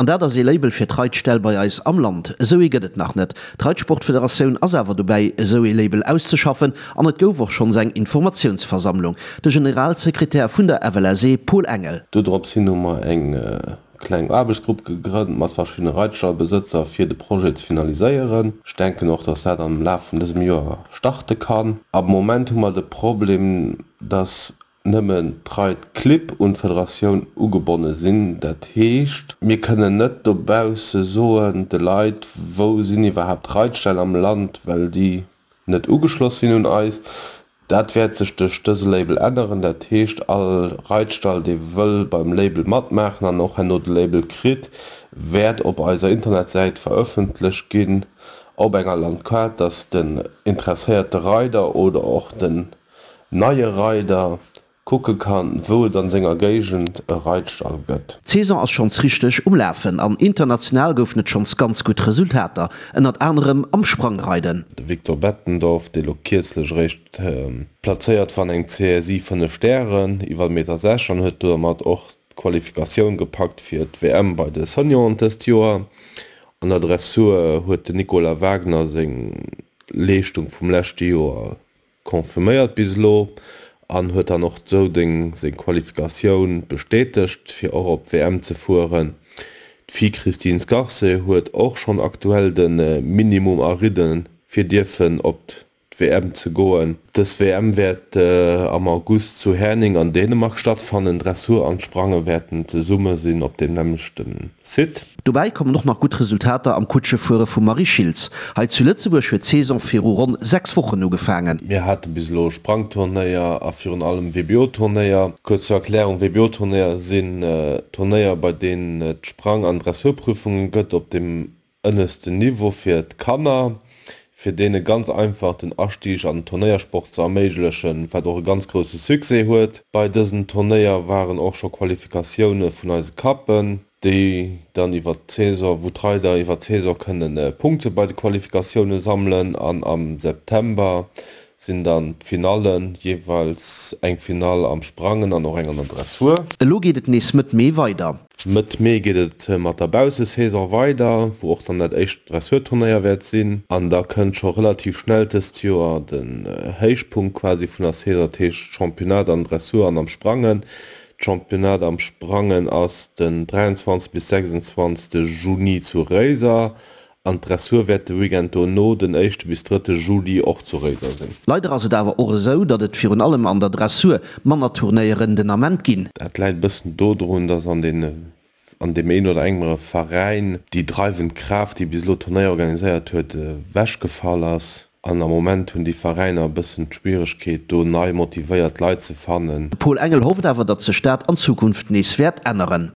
An dat ass ee Label fir d'Reitställ bei eis am Land. Esou ee gëtt et nach net. D'Reitsportfederatioun ass awer dobäi, esou ee Label auszeschaffen an et gouf och schonns eng Informatiounsversammlung. De Generalsekretär vun der FLSE, Paul Engel. Dodrops hin hu mer eng kleng Aarbechtsgrupp gegrënnt mat verschiddene Reitstallbesëtzer fir de Projet ze finaliséieren. Ech denken och, dass dat am Laf vun dësem Joer starte kann. Am Moment hu mer de Problem, dass nëmmen d'Reitclibb un d'Federatioun ugebonne sinn. Dat heescht, mir kënnen net dobausse soen de Leit, wou sinn iwwerhaapt d'Reitställ am Land, well déi net ugeschloss sinn un eis. Dat wäert sech duerch dëse Label änneren. Dat heescht, all Reitstall, dee wëll beim Label matmaachen an och herno de Label kritt, wäert op eiser Internetsäit verëffentlecht ginn op enger Landkaart, dass den interesséierte Reider oder och den neie Reider kucke kann, wou et an senger Géigend e Reitstall gëtt. D'Saison ass schonns richteg um Lafen an international goufen et schonns ganz gutt Resultater, ënnert anerem am Sprangreiden. De Victor Bettendorf, dee lo kierzlech eréischt plazéiert war an engem CSI 5 Stären iwwer Meter 6 an huet domat och d'Qualifikatioun gepackt fir d'WM bei de Senioren dëst Joer. An der Dressur huet den Nicolas Wagner seng Leeschtung vum leschte Joer Confirméiert bis elo an huet dann och sou deng seng Qualifikatioun bestätegt fir och op d'WM ze fueren. D'Fi Christine Scarce huet och schonn aktuell de Minimum eridden fir dierfen op d'WM ze goen. Dës WM wäert am August zu Herning an Dänemark stattfannen. Dressur an Sprange wäerten zesumme sinn op deem nämmlechten Site. Dobäi kommen och nach gutt Resultater am Kutschefuere vum Marie Schiltz. Hei zu Lëtzebuerg huet d'Saison viru ronn 6 Wochen ugefaangen. Mir hate bis elo Sprangturnéier a virun allem WBO-Turnéier. Kuerz zur Erklärung, WBO-Turnéier sinn Turnéier, bei deenen et Sprang an Dressurprüfungen gëtt op dem ënneschten Niveau fir d'Kanner, fir deene ganz einfach den Astieg an den Turnéiersport ze erméiglechen, wat och e ganz grousse Succès huet. Bei dësen Turnéier waren och scho Qualifikatioune vun eise Cuppen. déi dann iwwer d'Saison, wou d'Reider iwwer d'Saison kënnen Punkte bei de Qualifikatioune sammelen an am September sinn dann d'Finallen, jeeweils eng Finall am Sprangen an och eng an der Dressur. Elo geet et nees Mëtt Mee weider. Mëtt Mee geet et mat der Baussesaison weider, wou och dann dat éischt Dressurturnéier wäert sinn an da kënnt scho relativ schnell dëst Joer den Héichpunkt quasi vun der Saison, dat heescht Championnat an Dressur an am Sprangen. D'Championnat am Sprangen ass den 23 bis 26 Juni zu Réiser an d'Dressur wäert de Weekend dono, den éischte bis drëtte Juli, och zu Réiser sinn. Leider ass et awer och esou, datt et virun allem an der Dressur manner Turnéieren den Ament ginn. Dat läit e bëssen dodrun, datt an deene an deem een oder engere Veräin déi dreiwend Kraaft, déi bis elo d'Turnéier organiséiert huet, ewechgefall ass. An am Moment hunn déi Veräiner e bëssen d'Schwieregkeet, do nei motivéiert Leit ze fannen. De Paul Engel hofft awer, datt sech dat an Zukunft nees wäert änneren.